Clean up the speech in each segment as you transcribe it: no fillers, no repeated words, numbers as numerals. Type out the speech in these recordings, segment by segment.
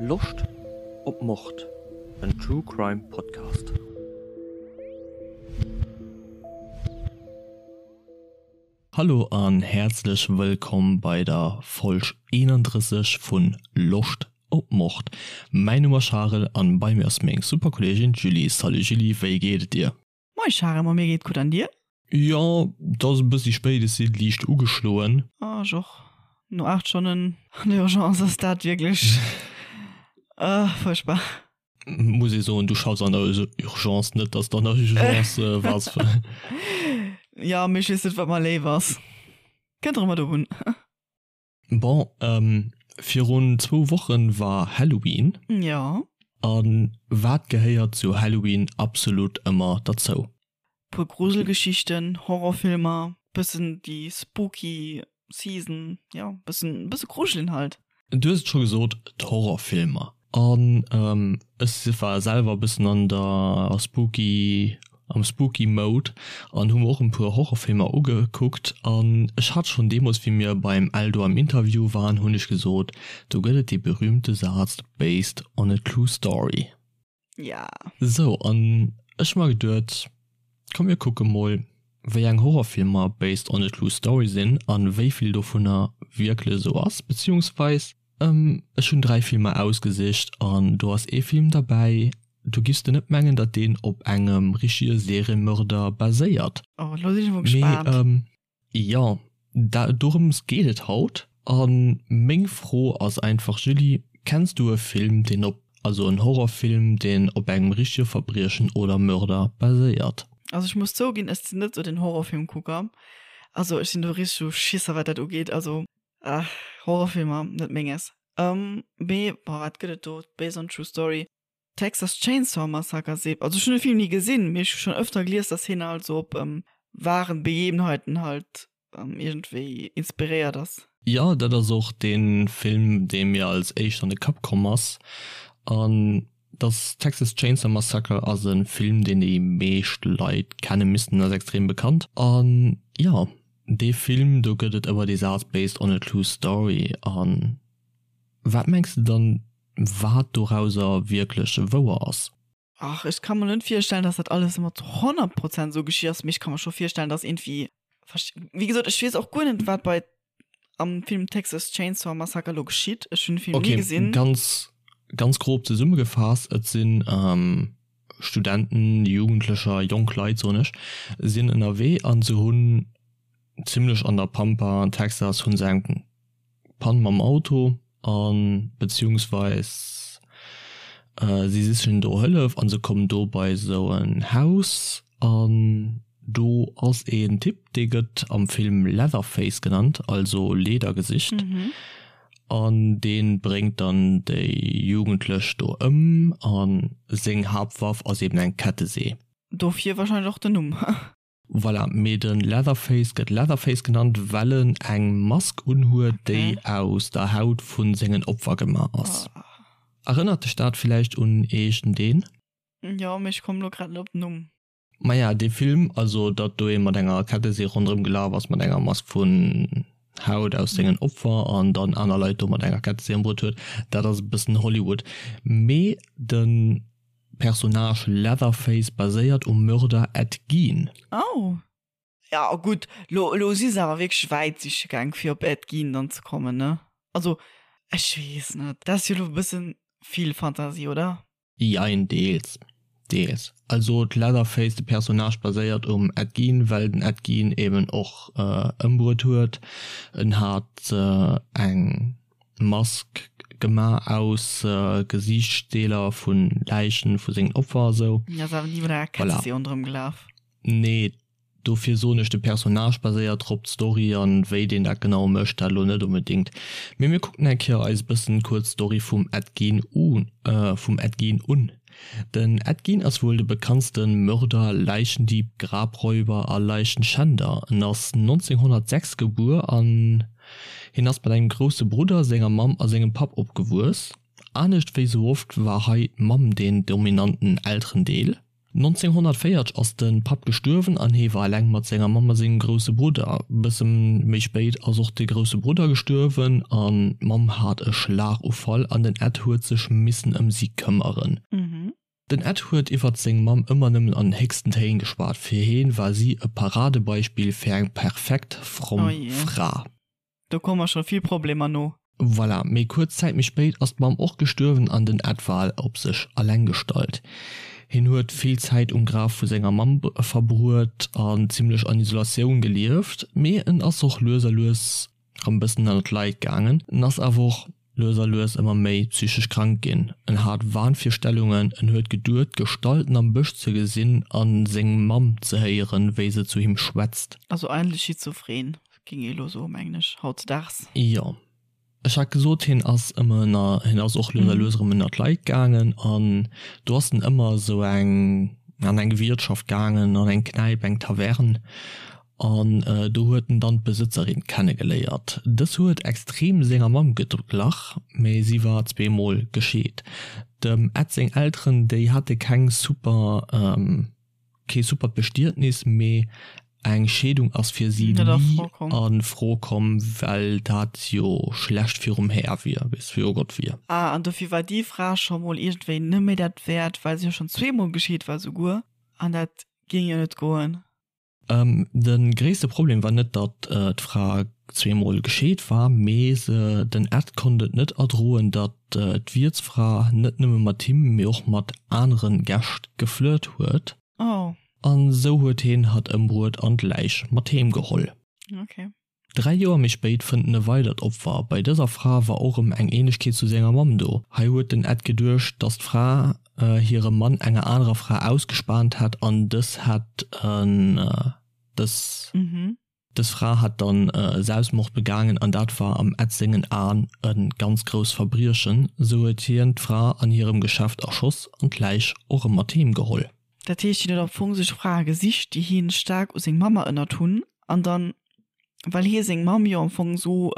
Loscht op Mord? En True Crime Podcast. Hallo an häerzlech wëllkomm bei der Folg 31 vun Loscht op Mord. Mäin Numm ass Charel an bei mir ass meng super Kolleegin d'Julie. Salut Julie, wéi geet et dir? Moin Charel, ma mir geet gutt an dir? Jo, et ass e bëssi spéit, ech si liicht ugeschloen. Oh, ech och. No 8 Stonnen an der Urgence ass dat wierklech fuerchtbar. Muss ee soen, du schaffs an der Urgence, net dass de an der Urgence waars. Jo, mee ech weess net, wat mer léif ass. Kënnt och ëmmer drop un. Bon, virun zwou Wochen war Halloween. Jo. A wat gehéiert zu Halloween absolut ëmmer derzou? Puer Gruselgeschichten, Horrorfilmer, bëssen déi spooky Season, jo, bëssen, bësse grujelen halt. Du hues et scho gesot, d'Horrorfilmer. An ech war selwer e bëssen an der spooky, am spooky Mode an hu mer och en puer Horrorfilmer ugekuckt. An ech hat schonn deemools, wéi mir beim Eldo am Interview waren, hunn ech gesot, do gëtt et dee berühmte Saz based on a true story. Ja. Sou, an ech hu mer geduet, komm mir kucke mol, wéi eng Horrorfilmer based on a true story sinn an wéi vill dovunner wierklech esou ass, beziehungsweis Ech hunn 3 Filmer ausgesicht an do ass ee Film derbäi, do giffs de net mengen, datt deen op engem richtege Seriemörder baséiert. Oh, elo sinn ech emol gespaant. Mee jo, dorëms geet et haut. A meng Fro ass einfach, Julie, kenns du e Film, deen op, also en Horrorfilm, deen op engem richtege Verbriechen oder Mörder baséiert? Also ech muss zouginn, ech sinn net sou den Horrorfilmkucker. Also ech sinn do richteg sou Schisser wat dat ugeet. Also Ach, Horrorfilmer, net menges. Ähm, mee, boah, wat gëtt et do? Based on true story. Texas Chainsaw Massacre seet, also ech hunn de Film ni gesinn, mee ech hu schonn ëfter gelies, dass hien halt sou op ähm, wahren Begebenheiten halt ähm, iergendwéi inspiréiert ass. Jo, dat ass och dee Film, dee mir als éischt an de Kapp komm ass. An dass Texas Chainsaw Massacre ass e Film, deen déi meescht Leit kenne missten, ass extrem bekannt. An jo, Dee Film do gëtt et ëmmer dee Saz based on a true story. An wat mengs de dann wat dorauser wierklech wouer ass? Ach, ech ka mer net virstellen, dass dat alles ëmmer zu 100 Prozent esou geschitt ass, mee ech ka mer scho virstellen, dass iergendwéi, wéi gesot, ech weess och guer net, wat bei am Film Texas Chainsaw Massacre elo geschitt. Ech hunn de Film ni gesinn. Okay, ganz, ganz grob zesummegefaasst, et sinn Studenten, Jugendlecher, jonk Leit soen ech, sinn ënnerwee an se hunn zimlech an der Pampa an Texas hunn se eng Pann mam Auto an beziehungsweis si sichen do Hëllef an se kommen do bei esou en Haus an do ass een Typ dee gëtt am Film Leatherface genannt, also Ledergesicht. An dee bréngt dann déi Jugendlech do ëm a seng Haaptwaff ass eben eng Kettesee. Dofir wahrscheinlech och den Numm. Voilà, mee de Leatherface gëtt Leatherface genannt, well en eng Mask unhuet, déi aus der Haut vu sengen Opfer gemaach ass. Erënnert dech dat villäicht un iergendeen? Jo, mee ech kommen elo grad net op den Numm. Maja, dee Film, also datt do ee mat enger Kettesee ronderëm gelaf ass, mat enger Mask vun Haut aus sengen Opfer an dann aner Leit do mat enger Kettesee ëmbruet huet, dat ass e bëssen Hollywood. Mee de Personnage Leatherface baséiert um Mörder Ed Gein. Oh. Ja, gutt, lo, lo si se awer wierklech wäit siche gaang, fir op Ed Gein dann ze kommen, ne? Also, ech weess net, dat ass jo lo e bëssen vill Fantasie, oder? Jein, deels, deels. Also d'Leatherface, de Personnage baséiert um Ed Gein, well den Ed Gein eben och ëmbruet huet. En hat eng Mask gemaach aus Gesiichtsdeeler vu Läichen vu sengen Opfer a sou. Ass awer ni mat enger Kettesee ronderëm gelaf. Nee, Dofir soen ech, de Personnage baséiert drop, d'Story an wéi deen dat genau mécht, dat elo net onbedingt. Mee mir kucken eng Kéier eis e bëssen kuerz d'Story vum Ed Gein u vum Ed Gein un. Den Ed Gein ass wuel de bekanntste Mörder, Leichendieb, Grabräuber a Leichenschänder. En ass 1906 gebuer an hien ass mat engem grousse Brudder, senger Mamm a sengem Papp opgewuess. Anescht wéi sou oft war hei d'Mamm deen dominanten Elterendeel. 1940 ass de Papp gestuerwen an hee war eleng mat senger Mamm a sengem grousse Brudder. Bësse méi spéit ass och de grousse Brudder gestuerwen an d'Mamm hat e Schlagufall an den Ed huet sech missen ëm si këmmeren. Den Ed huet iwwert seng Mamm ëmmer nëmmen an den héchsten Téin geschwat, fir heen war si e Paradebeispill fir eng perfekt fromm Fra. Do komme scho vill Problemer no. Voilà, mee kuerz Zäit méi spéit ass d'Mamm och gestuerwen an den Ed war op sech alleng gestallt. Hien huet vill Zäit um Graf vu senger Mamm verbruet an zimmlech an Isolatioun gelieft, mee en ass och lues a lues rëm bëssen ënnert d'Leit gaangen. En ass awer och lues a lues ëmmer méi psychesch krank ginn. En hat Wahnvirstellungen, en huet geduet Gestalten am Bësch ze gesinn an seng Mamm ze héieren, wéi se zu him schwätzt. Also eigentlech schizophren, géing ee lo soen, mengen ech, hautzedaags. Jo. Ech hat gesot, hien ass ëmmer ënner, hien ass och lues a lues erëm ënner d'Leit gaangen an do ass en ëmmer esou eng, an eng Wiertschaft gaangen, an eng Knäip, eng Taverne An do huet en dann d'Besëtzerin kennegeléiert. Dës huet extrem senger Mamm geglach, mee si war zweemol gescheet. Dem Ed seng Elteren, déi hate keng super, kee supert Bestietnis, mee eng Scheedung ass fir si ni a Fro komm, well dat jo schlecht virum Här wier, weess, viru Gott wier. Ah, an dofir war déi Fra scho mol iergendwéi net méi dat wäert, well se jo schonn zweemol gescheet war souguer, an dat géing jo net goen. De gréisste Problem war net, datt d'Fra zweemol gescheet war, mee se, den Ed konnt et net erdroen, datt d'Wiertsfra net nëmme mat him, mee och mat anere Gäscht geflirt huet. Oh. An esou huet hien hatt ëmbruet an d'Läich mat heem geholl. Okay. 3 Joer méi spéit fënnt en e weidert Opfer. Bei dëser Fra war och erëm eng Ähnlechkeet zu senger Mamm do. Hei huet den Ed geduecht, dass d'Fra hire Mann enger anerer Fra ausgespaant hätt an dës hätt en dës dës Fra hätt dann Selbstmord begaangen an dat war am Ed sengen Aen e ganz grousst Verbriechen. Sou huet hien d'Fra an hirem Geschäft erschoss an d'Läich och erëm mat heem geholl. Dat heescht, hien huet am Fong sech Frae gesicht, déi hien staark u seng Mamm erënnert hunn, an dann, well hie seng Mamm jo am Fong esou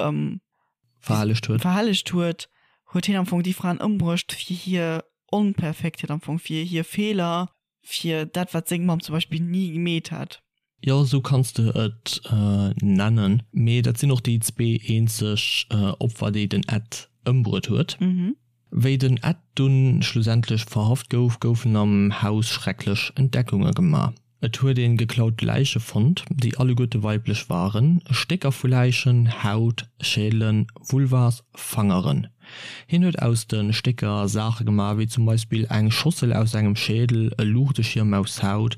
verhellegt huet, verhellegt huet, huet hien am Fong déi Fraen ëmbruecht fir hir Onperfektheet am Fong, fir hir Feeler, fir dat, wat seng Mamm zum Beispill ni gemeet hätt. Jo, esou kanns de et nennen. Mee dat sinn och déi zwee eenzeg Opfer, déi den Ed ëmbruet huet. Wéi den Ed dunn schlussendlech verhaft gouf, goufen am Haus schrecklech Entdeckunge gemaach. Et huet een geklaut Läiche fonnt, déi alleguerte weiblech waren, Stécker vu Läichen, Haut, Schädelen, Vulvas, Fangeren. Hien huet aus de Stécker Saache gemaach, wéi zum Beispill eng Schossel aus engem Schädel, e Luuchteschierm aus Haut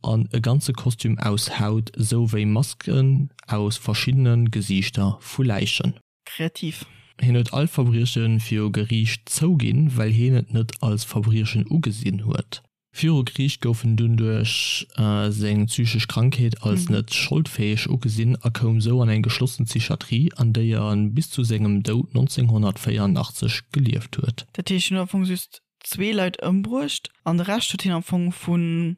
an e ganze Kostüm aus Haut, sou wéi Masken aus verschiddene Gesiichter vu Läichen. Kreativ. Hien huet all Verbrieche viru Geriicht zouginn, well hien et net als Verbriechen ugesinn huet. Viru Geriicht gouf en dunn duerch seng psychesch Krankheet als net scholdfäeg ugesinn a koum sou an eng geschlossen Psychiatrie, an déier en bis zu sengem Doud 1984 gelieft huet. Dat heescht, hien huet am Fong just zwee Leit ëmbruecht an de Rescht huet hien am Fong vun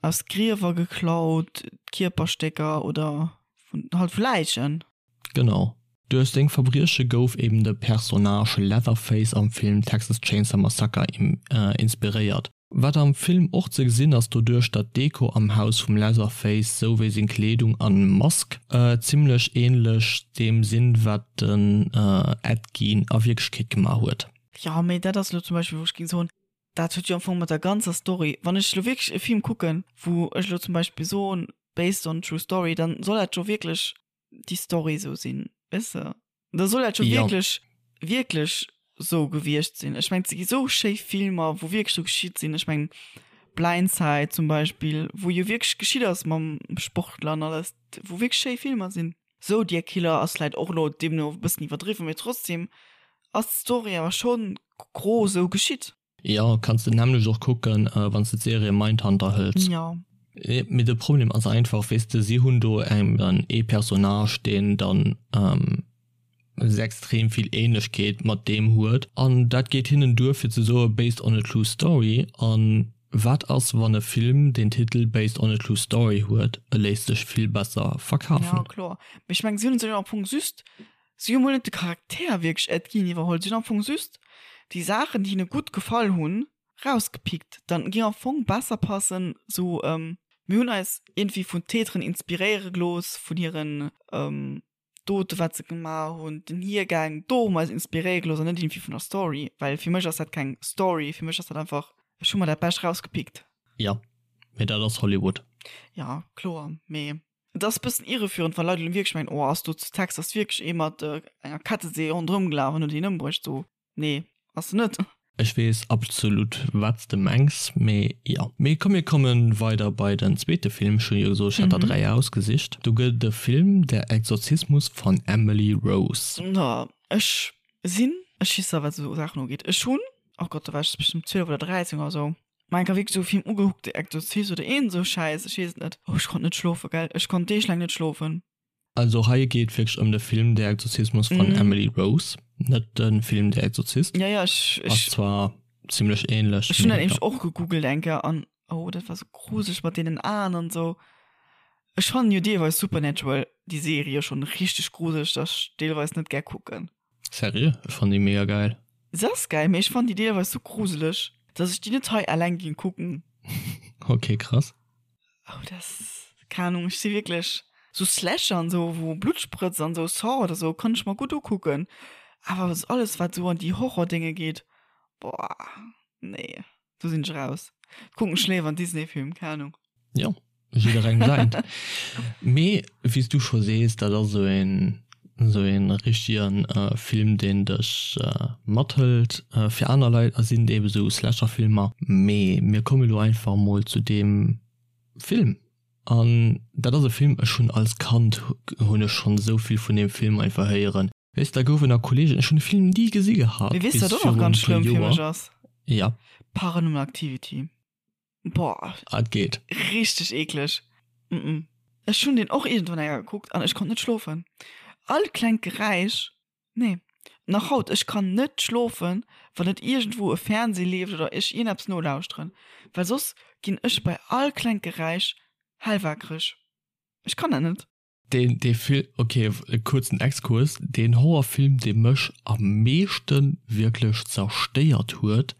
aus Griewer geklaut, Kierperstécker oder vun halt vu Läichen. Genau. Duerch seng Verbrieche gouf eben de Personnage Leatherface am Film Texas Chainsaw Massacre inspiréiert. Wat am Film och ze gesinn ass, doduerch datt d'Deko am Haus vum Leatherface sou wéi seng Kleedung an Mask zimmlech ähnlech deem sinn wat den Ed Gein a Wierklechkeet gemaach huet. Jo, mee dat ass elo zum Beispill wou ech géing soen, dat huet jo am Fong mat der ganzer Story, wann ech elo wierklech e Film kucken, wou ech elo zum Beispill soen based on true story, dann soll dat jo wierklech déi Story sou sinn, weess de? Da soll dat jo ja. wierklech, wierklech sou gewiescht sinn. Ech meng, et gi sou schéi Filmer, wou wierklech sou geschitt sinn. Ech meng, Blindside zum Beispill, wou jo wierklech geschitt ass mam Sportler an alles, wou wierklech schéi Filmer sinn. Zodiac Killer ass vläit och elo deemno e bëssen iwwerdriwwen, mee trotzdem ass d'Story awer schonn gros sou geschitt. Jo, kanns de nämlech och kucken, wanns de d'Serie Mindhunter hëls. Jo. Mee de Problem ass einfach, weess de, si hunn do eben ee Personnage, deen dann extrem vill Ähnlechkeet mat deem huet, an dat geet hinnen duer fir ze soe based on a true story. An wat ass, wann e Film den Titel based on a true story huet? E léisst sech vill besser verkafen. Jo, kloer. Mee ech mengen, si hunn sech am Fong just Si hu mol net de Charakter wierklech Ed Gein iwwerholl, si hunn am Fong just déi Saachen, déi hinne gutt gefall hunn. Rausgepickt. Dann ging am Fong besser passen sou mir hunn eis iergendwéi vun Täteren inspiréiere gelooss, vun hiren Dote wat se gemaach hunn, den Hiergäng, do hu mer eis inspiréiere gelooss an net iergendwéi vun der Story, well fir mech ass dat keng Story, fir mech ass dat einfach, ech hu mer dat Bescht rausgepickt. Jo, mee dat ass Hollywood. Jo, kloer, mee et ass e bëssen irreführend, wa Leit elo wierklech mengen, oh ass do zu Texas wierklech ee mat enger Kettesee ronderëm gelaf an huet een ëmbruecht, sou. Nee, ass se net. Ech wees absolut wats de mengs, mee jo. Mee komm mir kommen weider bei den zweete Film, ech hun jo gesot ech hätt der 3 ausgesicht. Do gëtt et e Film, Der Exorzismus von Emily Rose. No, ech sinn e Schisser wat esou Saachen ugeet. Ech hunn, oh Gott, do war ech bestëmmt 12 oder 13 oder sou, mer enker wierklech esou e Film ugekuckt, Der Exorzist oder iergend esou Schäiss, ech weess et net. Oh, ech konnt net schlofen, gell, ech konnt deeglaang net schlofen. Also hei geet wierklech ëm de Film Der Exorzismus von mm. Emily Rose, net de Film Der Exorzist. Ja, ja, ech, ech, Ass zwar ziemlech ähnlech. Ech hunn dat nämlech och gegoogelt eng Kéier an oh, dat war sou gruseleg mat deenen Aen an sou. Ech fannen jo deelweis Supernatural, déi Serie, schonn richteg gruseleg, dass ech deelweis net gär kucken. Seriö? Ech fannen déi mega geil. Se ass geil, mee ech fannen déi deelweis sou gruseleg, dass ech déi net hei eleng ging kucken. Okay, krass. Oh, das, keine Ahnung, ech si wierklech sou Slasher an sou, wou Blutt sprëtzt an sou, Saw oder sou, kann ech mer gutt ukucken. Awer alles, wat sou an déi Horror-Dénge geet, boah, nee, do sinn ech raus. Kucken ech léiwer en Disney-Film, keng Ahnung. Jo, jidderengem säint. Mee wéi s du scho sees, dat ass esou een, esou een richtegen Film, deen dech mathëlt. Fir aner Leit sinn et ebe sou Slasher-Filmer. Mee mir komme lo einfach mol zu deem Film. An dat ass e Film, ech hunn als Kand hunn ech schonn esou vill vun deem Film einfach héieren. Weess, da goufen nach Kollegen, ech hunn de Film ni gesi gehat Mee weess du, bis wat och nach virun ganz e puer schlëmm fir mech Joer. ass? Ja. Paranormal Activity. Boah. Ah, et geet. Richteg eekleg. Mm -mm. Ech hunn deen och iergendwann eng Kéier gekuckt an ech konnt net schlofen. All klengt Geräisch, nee. Nach haut, ech kann net schlofen, wann net iergendwou e Fernseh leeft oder ech iergendeppes nolauschteren, well soss ginn ech bei all klengt Geräisch hellwakereg. Ech kann dat net. Deen, dee Film, ok, e kuerzen Exkurs, deen Horrorfilm, dee mech am meeschte wierklech zerstéiert huet,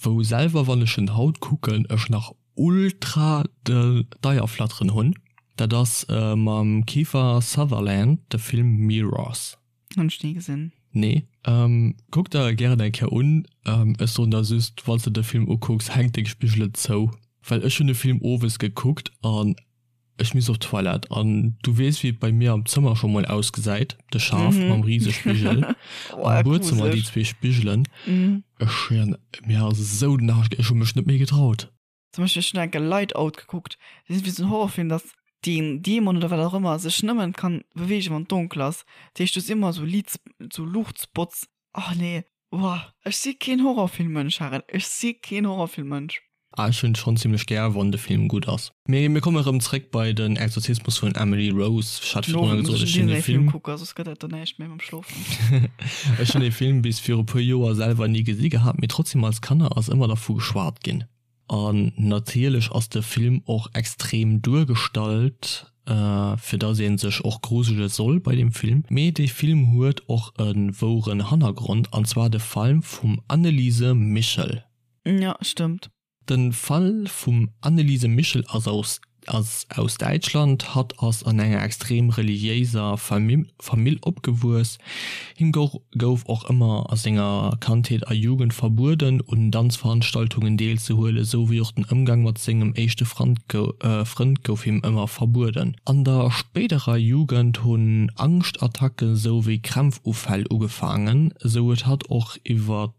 wou selwer wann ech en haut kucken, ech nach ultra d'Eierflatteren hunn, dat ass mam Kiefer Sutherland de Film Mirrors. Hunn ech ni gesinn. Nee. Kuck der e gären eng Kéier un. Ech soen der just, wann s de de Film ukucks, hänk deng Spigelen zou, well ech hunn de Film owes gekuckt an Ech misst op d'Toilette an du weess wéi et bei mir am Zëmmer scho mol ausgesäit, de Schaf mam Risespigel, am Buedzëmmer déi zwee Spigelen. Ech schwéieren, mir ass esou den Aarsch, ech hu mech net méi getraut. Zum Beispill, ech hunn enke Light Out gekuckt, dat ass wéi esou en Horrorfilm, dass deen Dämon oder wat och ëmmer sech nëmmen kann beweegen wann et donkel ass, dat heescht du hues ëmmer esou Liits, esou Luuchtspots. Oh nee, Boah, ech si keen Horrorfilmmënsch, Harel, ech si keen Horrorfilmmënsch. Ah, ech hunn et schonn zimmlech gär, wann de Film gutt ass. Mee mir komme rëm zréck bei den Exorzismus vun Emily Rose. Ech hat virdrun gesot, ech hunn dee Film. Kucke, soss gëtt dat do näischt méi mam Schlofen. Ech hunn dee Film bis viru puer Joer selwer ni gesi gehat, mee trotzdem als Kanner ass ëmmer dervu geschwat ginn. An natierlech ass de Film och extrem duergestallt, fir dass een sech och grusele soll bei deem Film. Mee dee Film huet och e woueren Hannergrond, an zwar de Fall vum Anneliese Michel. Jo, stëmmt. De Fall vum Anneliese Michel ass aus ass aus Däitschland. Hatt ass an enger extrem reliéiser Famill opgewuess. Him gouf och ëmmer a senger Kandheet a Jugend verbueden, un Danzveranstaltungen deelzehuelen, sou wéi och den Ëmgang mat sengem éischte Frënd gouf him ëmmer verbueden. An der spéiderer Jugend hunn Angschtattacke sou wéi Krämpfufäll ugefaangen, sou huet hatt och iwwer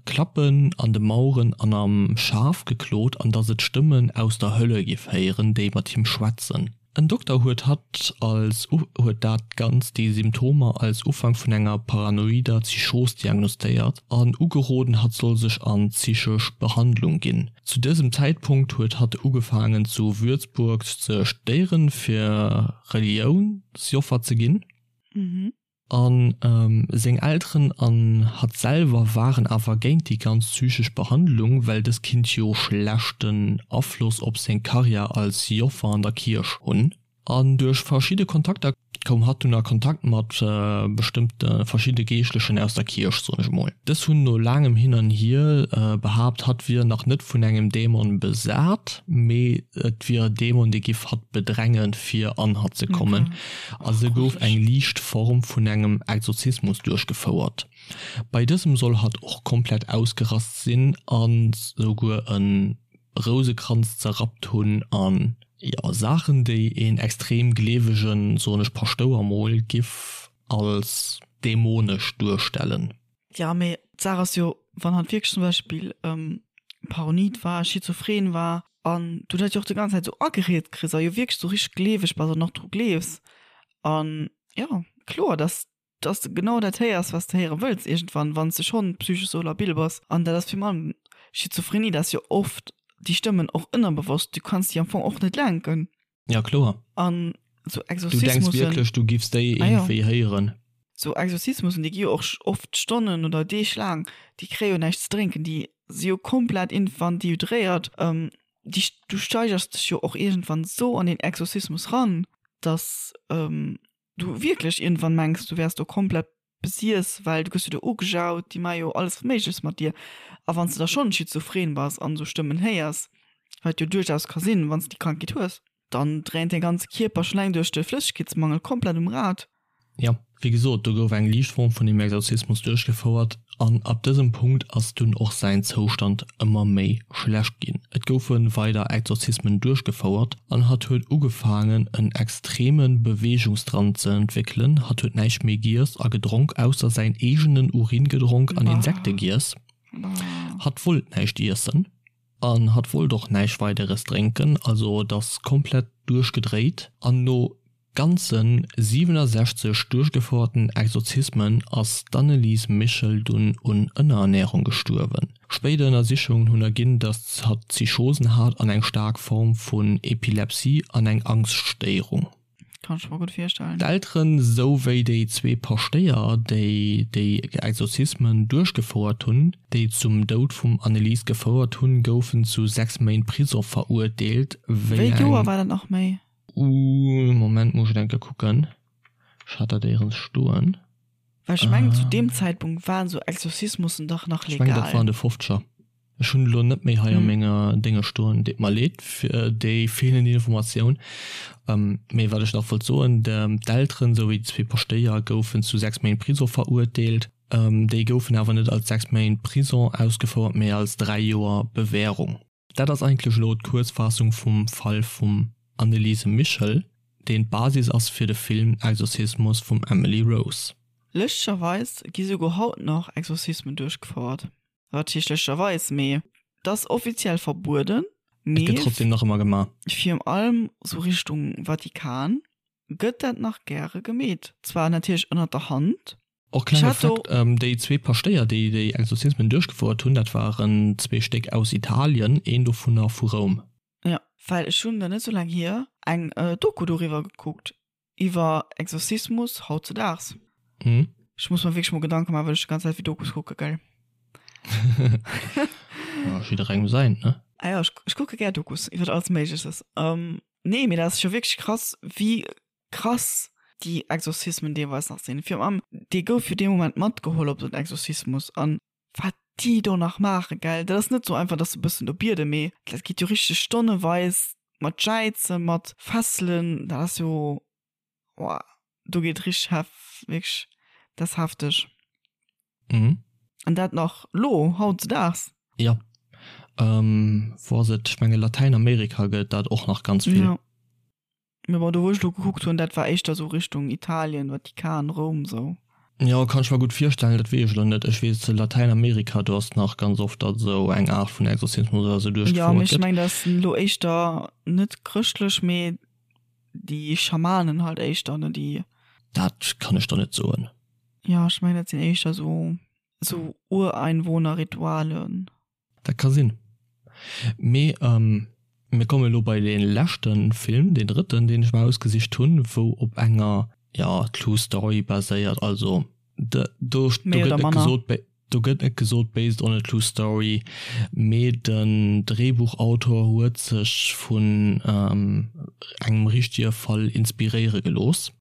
Klappen an de Maueren an am Schaf geklot an dass et Stëmmen aus der Hölle giff héieren, déi mat him schwätzen. En Dokter huet hatt als huet dat Ganzt déi Symptomer als Ufank vun enger paranoider Psychos diagnostéiert an ugeroden hatt soll sech an psychesch Behandlung ginn. Zu dësem Zäitpunkt huet hatt ugefaangen zu Würzburg ze studéieren fir Reliounsjoffer ze ginn. A seng Elteren an hatt selwer waren awer géint déi ganz psychesch Behandlung, well dës kinnt jo schlechten Afloss op seng Karriär als Joffer an der Kierch hunn. An duerch verschidde Kontakter. Koum hatt dunn a Kontakt mat bestëmmte verschidde Geeschtlechen aus der Kierch, soen ech emol. Dës hunn no laangem Hin an Hier behaapt, hatt wier nach net vun engem Dämon besat, mee et wier e Dämon, dee giff hatt bedrängen, fir an hatt ze kommen. A se gouf eng liicht Form vun engem Exorzismus duerchgefouert. Bei dësem soll hatt och komplett ausgerast sinn a souguer e Rousekranz zerrappt hunn an jo Saachen déi een extrem gleewegen, soen ech Paschtouer mol, giff als dämonesch duerstellen. Jo mee d'Saach ass jo wann hatt wierklech zum Beispill paranoid war, schizophren war an du dat jo och déi ganz Zäit sou agereet kriss a jo wierklech sou richteg gleeweg bass an och dru gleefs an jo kloer dass dass de genau dat héiers, wat s de héiere wëlls iergendwann, wann s de schonn psychesch sou labil bass. An dat ass virun allem Schizophrenie, dat ass jo oft déi Stëmmen och ënnerbewosst, du kanns déi am Fong och net lenken. Ja, kloer. An sou Du denks Exorzismussen, wierklech, du giffs déi ah jo, iergendwéi héieren. sou Exorzismussen, déi gi jo och oft Stonnen oder Deeg laang, déi kréie jo näischt ze drénken, déi si jo komplett iergendwann dehydréiert, déi, du steigers dech jo och iergendwann sou an deen Exorzismus ran, dass du wierklech iergendwann mengs, du wäers do komplett besiess, well du gëss jo do ugejaut, déi maache jo alles Méigleches mat dir. A wann s de da schonn schizophren bass an esou Stëmmen héiers, wat jo duerchaus ka sinn, wann s de déi Krankheet hues, dann dréint däi ganze Kierper schonn eleng duerch de Flëssegkeetsmangel komplett um Rad. Jo, wéi gesot, do gouf eng liicht Form vun dem Exorzismus duerchgefouert an ab dësem Punkt ass dunn och säin Zoustand ëmmer méi schlecht ginn. Et goufe weider Exorzismen duerchgefouert an hatt huet ugefaangen en extreme Beweegungsdrang ze entwéckelen. Hatt huet näischt méi giess a gedronk ausser säin eegenen Urin gedronk an Insekte giess. Hatt wollt näischt iessen an hatt wollt och näischt weideres drénken, also et ass komplett duerchgedréit an no ganze 67 duerchgefouerten Exorzismen ass d'Annelies Michel dunn un Ënnerernärung gestuerwen. Spéider Ënnersichungen hunn erginn, datt hatt Psychosen hat an eng staark Form vun Epilepsie an eng Angschtstéierung. Kann ech mer gutt virstellen. D'Elteren, sou wéi déi zwee Paschtéier, déi déi Exorzismen duerchgefouert hunn, déi zum Doud vum Annelies gefouert hunn, goufen zu 6 Méint Prisong verurteelt, wéi Wéi Joer eng. war dat nach méi? Ooh, Moment, muss ech enke kucken. Ech hat dat éierens stoen. Well ech mengen, zu deem Zäitpunkt waren esou Exorzismussen dach nach legal. Ech mengen, dat war an de Fofzeger. Ech hunn elo net méi hei a menger Dénge stoen. Deet mer leed fir déi feelend Informatioun. Mee wat ech nach wollt soen, D'Elteren esou wéi déi zwee Paschtéier goufen zu 6 Méint Prisong verurteelt. Déi goufen awer net als 6 Méint Prisong ausgefouert, mee als 3 Joer Bewährung. Dat ass eigentlech elo d'Kuerzfaassung vum Fall vum Anneliese Michel, deen d'Basis ass fir de Film Exorzismus vum Emily Rose. Lëschterweis gi souguer haut nach Exorzismen duerchgefouert. Wat heescht lëschterweis, mee et ass offiziell verbueden, Et gëtt mee trotzdem nach ëmmer gemaach. virun allem sou Richtung Vatikan gëtt dat nach gäre gemeet. Zwar natierlech ënnert der Hand, Och klenge Fakt, déi zwee Paschtéier, déi déi Exorzismen duerchgefouert hunn, dat waren zwee Stéck aus Italien, een dovunner vu Roum. Jo, well ech hunn, net sou laang hier, eng Doku doriwwer gekuckt, iwwer Exorzismus hautzedaags. Ech muss mer wierklech mol Gedanke maachen, wat ech déi ganz Zäit fir Dokus kucke, gell? Ja, jidderengem säint, ne? Ah jo, ech kucke gär Dokus iwwer alles Méigleches. Nee, mee dat ass jo wierklech krass, wéi Krass déi Exorzismen deelweis nach sinn. Virun allem dee gouf jo dee Moment matgeholl op den Exorzismus an wat déi do nach maachen, gell, dat ass net sou einfach, dass se e bëssen do bieden, mee dat geet jo richteg stonneweis mat Jäizen, mat Fesselen, dat ass jo, woah, do geet richteg hef, wierklech, dat ass hefteg. Mhm. An dat nach lo, hautzedaags. Jo. Wou ass et? Ech menge Latäinamerika gëtt dat och nach ganz vill. Jo. Mee bon, do wou ech lo gekuckt hunn, dat war éischter sou Richtung Italien, Vatikan, Roum sou. Jo, kann ech mer gutt virstellen, dat weess ech lo net. Ech weess Latäinamerika, do ass nach ganz oft, datt esou eng Aart vun Exorzismus oder sou Jo, mee duerchgefouert ech gëtt. mengen, dat ass lo éischter net chrëschtlech, mee déi Schamanen halt éischter, ne, déi. Dat kann ech der net soen. Jo, ech mengen, dat sinn éischter sou, sou Ureinwohner-Ritualen. Dat ka sinn. Mee mir kommen elo bei dee leschte Film, deen drëtten, deen ech mer ausgesicht hunn, wou op enger, jo, True Story baséiert. Also do, do gëtt net gesot, do gëtt net gesot based on a true story, mee den Dréibuchautor huet sech vun engem richtege Fall inspiréiere gelooss.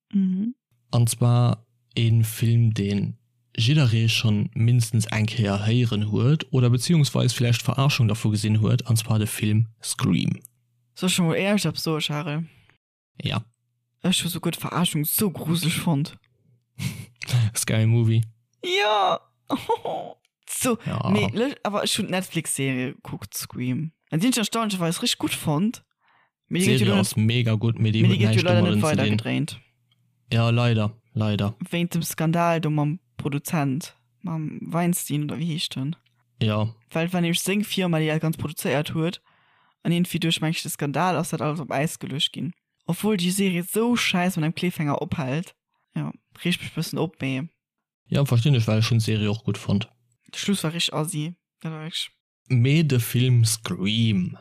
An zwar ee Film, dee jidderee schonn mindestens eng Kéier héieren huet oder beziehungsweis villäicht d'Verarschung dervu gesinn huet, an zwar de Film Scream. Soll ech mol éierlech eppes soe, Charel? Ja. Ech hu souguer d'Verarschung sou gruseleg fonnt. Scary Movie. Jo! So, ja. Nee, awer ech hunn d'Netflix-Serie gekuckt, Scream. An déi hunn ech erstaunlecherweis richteg gutt fonnt. Mee déi gëtt jo ass mega gutt, mee déi huet näischt domadden ze dinn. Gedréint. Ja, leider, leider. Wéint dem Skandal do mam Produzent, mam Weinstein oder wéi heescht en? Ja. Well et war nämlech seng Firma, déi dat Ganzt produzéiert huet. An iergendwéi duerch, meng ech, de Skandal ass dat alles op Äis geluecht ginn. Obwuel déi Serie sou schäiss mat engem Cliffhanger ophält. Jo, reegt mech bëssen op, mee. Ja, verstinn ech, well ech hunn d'Serie och gutt fonnt. De Schluss war richteg assi, dat war wierklech. Mee de Film Scream.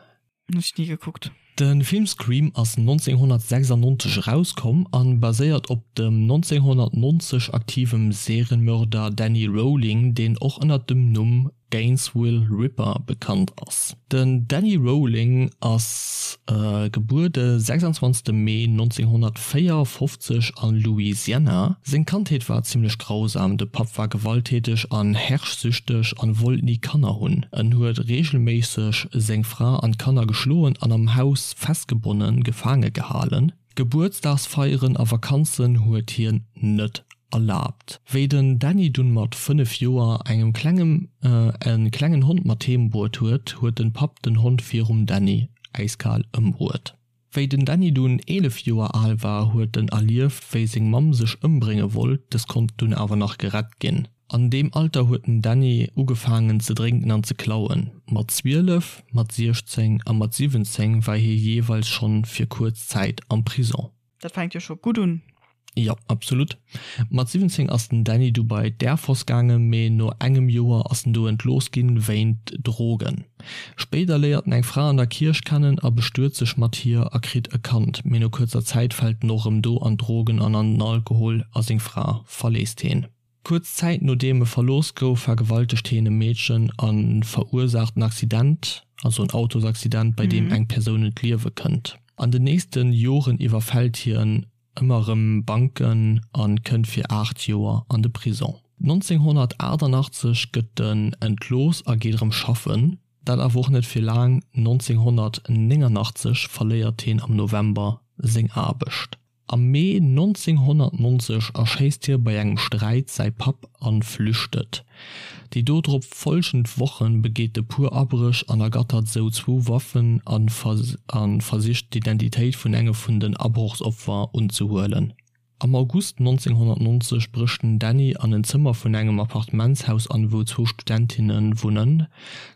Hunn ech ni gekuckt. De Film Scream ass 1996 erauskomm an baséiert op dem 1990 aktivem Serienmörder Danny Rolling, deen och ënnert dem Numm Gainesville Ripper bekannt ass. Den Danny Rolling ass gebuer de 26 Mee 1954 a Louisiana. Seng Kandheet war zimmlech grausam, de Papp war gewalttäteg an herrschsüchteg an wollt ni Kanner hunn. En huet reegelméisseg seng Fra an d'Kanner geschloen an am Haus festgebonnen, gefaange gehalen. Gebuertsdagsfeieren a Vakanzen huet hien net erlaabt. Wéi den Danny dunn mat 5 Joer engem klengem e klengen Hond mat heem bruet huet, huet den Papp den Hond virum Danny äiskal ëmbruet. Wéi den Danny dunn 11 Joer al war, huet en erlieft wéi seng Mamm sech ëmbrénge wollt, des konnt dunn awer nach gerett ginn. An deem Alter huet den Danny ugefaangen ze drénken an ze klauen. Mat 12, mat 16 a mat 17 war hie jeeweils schonn fir kuerz Zäit am Prison. Dat fänkt jo scho gutt un. Jo, absolut. Mat 17 ass den Danny du bei d'Air Force gaangen, mee no engem Joer ass en do entlooss ginn wéint Drogen. Spéider léiert en eng Fra an der Kierch kennen a bestuet sech mat hir a kritt e Kand, mee no kuerzer Zäit fält en och erëm do an d'Drogen an an den Alkohol a seng Fra verléisst heen. Kuerz Zäit nodeem e verlooss gouf, vergewaltegt hien e Meedchen a verursaacht en Accident, also en Autosaccident, bei deem eng Persoun ëm d'Liewe kënnt. An den nächste Joren iwwerfält hien ëmmer erëm Banken a kënnt fir 8 Joer an de Prison. 1988 gëtt en entlooss a geet erëm schaffen, dat awer och net fir laang, 1989 verléiert hien am November seng Aarbecht. Am Mee 1990 erschéisst hie bei engem Sträit säi Papp a flüchtet. Déi dodrop folgend Woche begeet e puer Abréch an ergattert sou zwou Waffen a versicht d'Identitéit vun engem vun den Abrochsopfer unzehuelen. Am August 1990 brécht den Danny an en Zëmmer vun engem Appartementshaus an, wou zwou Studentinne wunnen.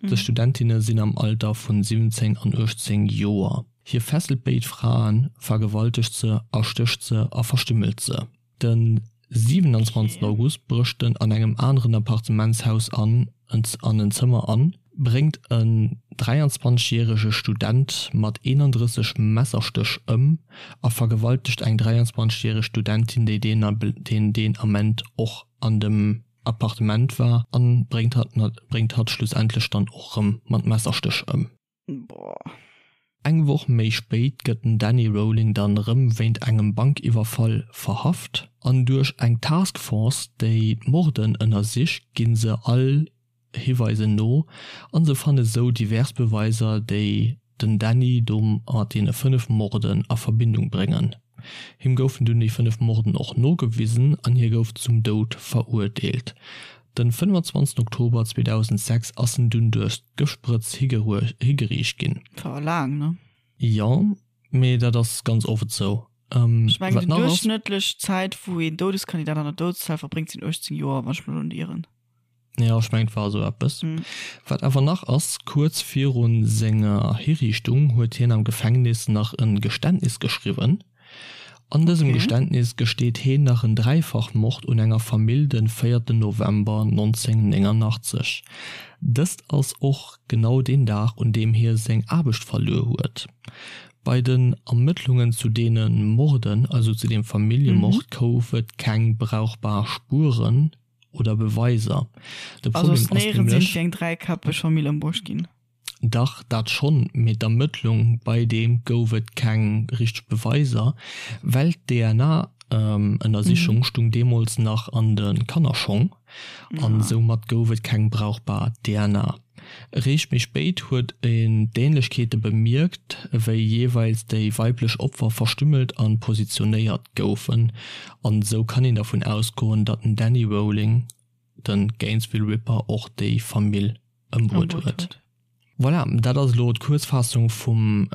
Dës Studentinne sinn am Alter vun 17 an 18 Joer. Hie fesselt béid Fraen, vergewaltegt se, erstécht se a verstümmelt se. Den 27 August brécht en an engem aneren Appartementshaus an an en Zëmmer an, bréngt en 23 järege Student mat 31 Messerstéch ëm a vergewaltegt eng 23 järeg Studentin, déi deen Ament och an dem Appartement war, an bréngt hatt schlussendlech dann och rëm mat Messerstéch ëm. Boah. Eng Woch méi spéit gëtt den Danny Rolling dann rëm wéint engem Bankiwwerfall verhaft an duerch eng Task Force, déi d'Morden ënnersicht, ginn se all Hiweisen no an se fanne sou divers Beweiser, déi den Danny do mat deene 5 Morden a Verbindung bréngen. Him goufen dunn déi 5 Morden och nogewisen an hie gouf zum Doud verurteelt. Den 25 Oktober 2006 ass en dunn duerch d'Gëftsprëtz higeriicht ginn. War laang, ne? Jo, mee dat ass ganz oft esou. Ech mengen déi duerchschnëttlech Zäit wou een Doudeskandidat an der Doudeszell verbréngt sinn 18 Joer, wann ech mech elo net ieren. Jo, ech mengen et war esou eppes. Wat awer nach ass, kuerz viru senger Hiriichtung huet hien am Gefängnis nach e Geständnis geschriwwen. An dësem Geständnis gesteet heen nach en Dräifachmord un enger Famill den 4 November 1989. Dëst ass och genau deen Dag un deem hie seng Aarbecht verluer huet. Bei den Ermëttlungen zu deene Morden, also zu deem Familljemord, gouf et keng brauchbar Spueren oder Beweiser. De Problem ass nämlech. Wéi eng dräikäppeg Famill ëmbruecht ginn. Dach, dat schonn, mee d'Ermëttlung, bei deem gouf et keng richteg Beweiser, well d'DNA. Ënnersichung stung deemools nach an de Kannerschong an soumat gouf et keng brauchbar DNA. Eréischt méi spéit huet een d'Ähnlechkeete bemierkt, wéi jeeweils déi weiblech Opfer verstümmelt a positionéiert goufen an esou kann een dervun ausgoen, datt den Danny Rolling, de Gainesville Ripper, och déi Famill ëmbruet huet. Voilà, dat ass elo d'Kuerzfaassung vum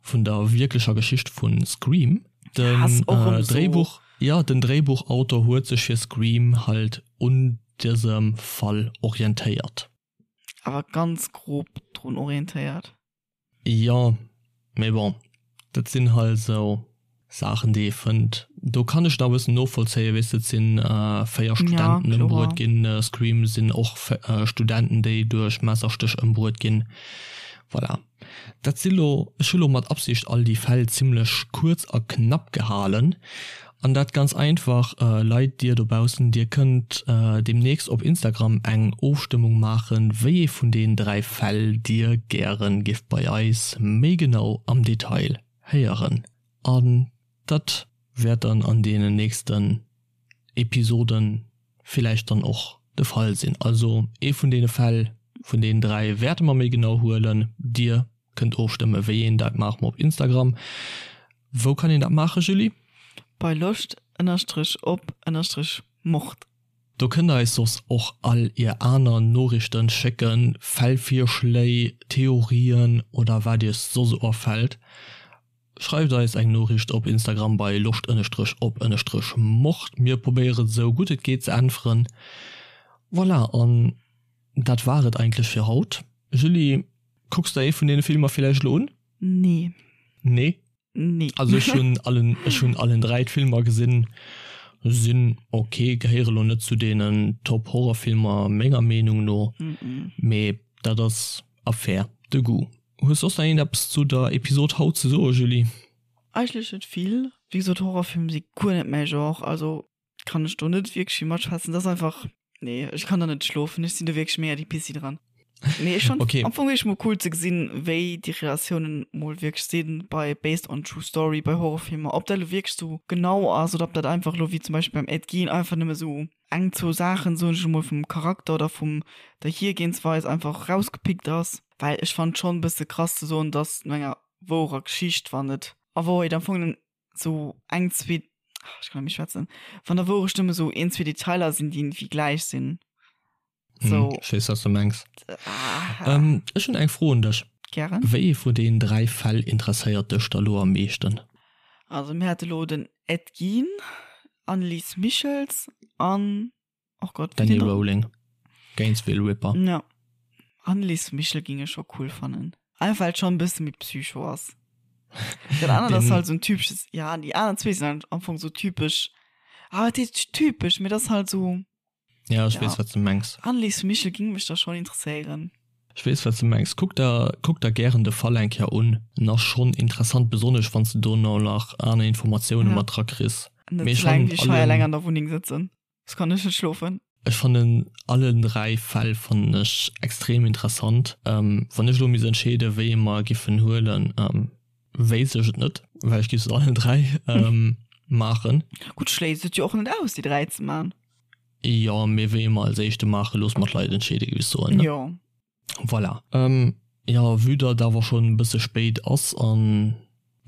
vun der wierklecher Geschicht vu Scream. Den Dréibuch, jo, den Dréibuchautor huet sech fir Scream halt un dësem Fall orientéiert. Awer ganz grob drun orientéiert. Jo, mee bon, dat sinn halt esou Saachen déi ee fënnt. Do kann ech nach e bëssen novollzéien, weess de, et sinn 4 Studenten ëmbruet ginn, Scream sinn och Studenten déi duerch Messerstéch ëmbruet ginn. Voilà. Dat si lo, ech hu lo mat Absicht all déi Fäll zimlech kuerz a knapp gehalen. An dat ganz einfach, Leit, dir dobaussen, dir kënnt deemnächst op Instagram eng Ofstëmmung maachen, wéi ee vun den 3 Fäll dir gären giff bei eis méi genau am Detail héieren. An dat wäert dann an deenen nächsten Episoden villäicht dann och de Fall sinn. Also ee vun deene Fäll vun deenen 3 wäerte mer méi genau huelen. Dir kënnt ofstëmme wéi een dat maache mer op Instagram. Wou kann een dat maachen, Julie? Bei Loscht ënnerstrech op ënnerstrech Mord. Do kënnt der eis soss och all ier aner Noriichten schécken, Fällvirschléi, Theorien oder wat iech soss afält. Schreift eis eng Noriicht op Instagram bei loscht ënnestrech op ënnestrech mord. Mir probéieren esou gutt et geet ze äntweren. Voilà, an dat war et eigentlech fir haut. Julie, kucks der ee vun deene Filmer villäicht elo un? Nee. Nee? Nee. Also ech hunn allen, ech hunn allen 3 d'Filmer gesinn, sinn ok, gehéiere lo net zu deenen Top Horrorfilmer menger Meenung no, mee dat ass Affaire de goût. Hues soss nach iergendeppes zu der Episod haut ze soen, Julie? Eigentlech net vill. Wéi gesot, Horrorfilm si guer net mäi Genre, also kann ech do net wierklech vill matschwätzen. Dat ass einfach, nee, ech kann da net schlofen, ech sinn do wierklech mega déi Pissi dran. Mee ech fand Okay. am Fong wierklech mol cool ze gesinn, wéi déi Relatiounen mol wierklech sinn bei based on true story, bei Horrorfilmer, ob dat elo wierklech sou genau ass oder ob dat einfach elo wéi zum Beispill beim Ed Gein einfach nëmme sou eng, zwou Saachen, soen ech emol, vum Charakter oder vum der Hiergehensweis einfach rausgepickt ass. Well ech fand schonn e bësse krass ze soen, dass no enger wourer Geschicht, wann et a Wouerheet am Fong sou eng, zwee, ech kann net méi schwätzen, wann der Wourecht nëmme sou een, zwee Detailer sinn, déi iergendwéi gläich sinn. So. Hm, ech weess, wat s du mengs. Ah. Ähm, ech hunn eng Fro un dech. Gären. Wéi ee vun deenen 3 Fäll interesséiert dech da lo am meeschten? Also mir hate lo den Ed Gein, Annelies Michels an, oh Gott, wéi Danny Rowling, Gainesville Ripper. Ja. Annelies Michel ging ech scho cool fannen. Einfach well et schon e bësse méi psycho ass. Dat anert ass halt sou en typesches, ja, déi aner zwee sinn halt am Fong sou typesch, ah wat heescht typesch, mee dat ass halt sou. Ja, ech weess, wat s de mengs. Annelies Michel ging mech da schon interesséieren. Ech weess, wat s de mengs. Kuck der, kuck der gären de Fall eng Kéier un. En ass schonn interessant, besonnesch wann s de dono nach aner Informatioune Ja. mat dra kriss. Net Mee ech ze laang fannen wéi ech hei eleng allen, an der Wunneng sëtzen, soss kann ech net schlofen. ech fannen allen 3 Fäll fannen ech extrem interessant. Wann ech elo misst entscheeden, wéi ee mer giffen huelen, wéisst ech et net, well ech giff se allen 3 maachen. Gutt, schléisst et jo och net aus, déi 3 ze man. Jo, mee wéi mer als éischte maachen, loosse mer d'Leit entscheeden, géif ech soen, ne? Jo. Voilà. Jo, vue datt et awer schonn e bësse spéit ass an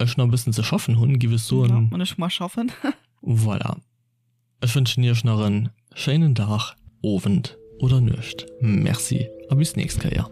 ech nach e bëssen ze schaffen hunn, géif ech soen. Jo, an ech mar schaffen. Voilà. Ech wënschen iech nach en schéinen Dag, Owend oder Nuecht. Merci a bis nächst Kéier.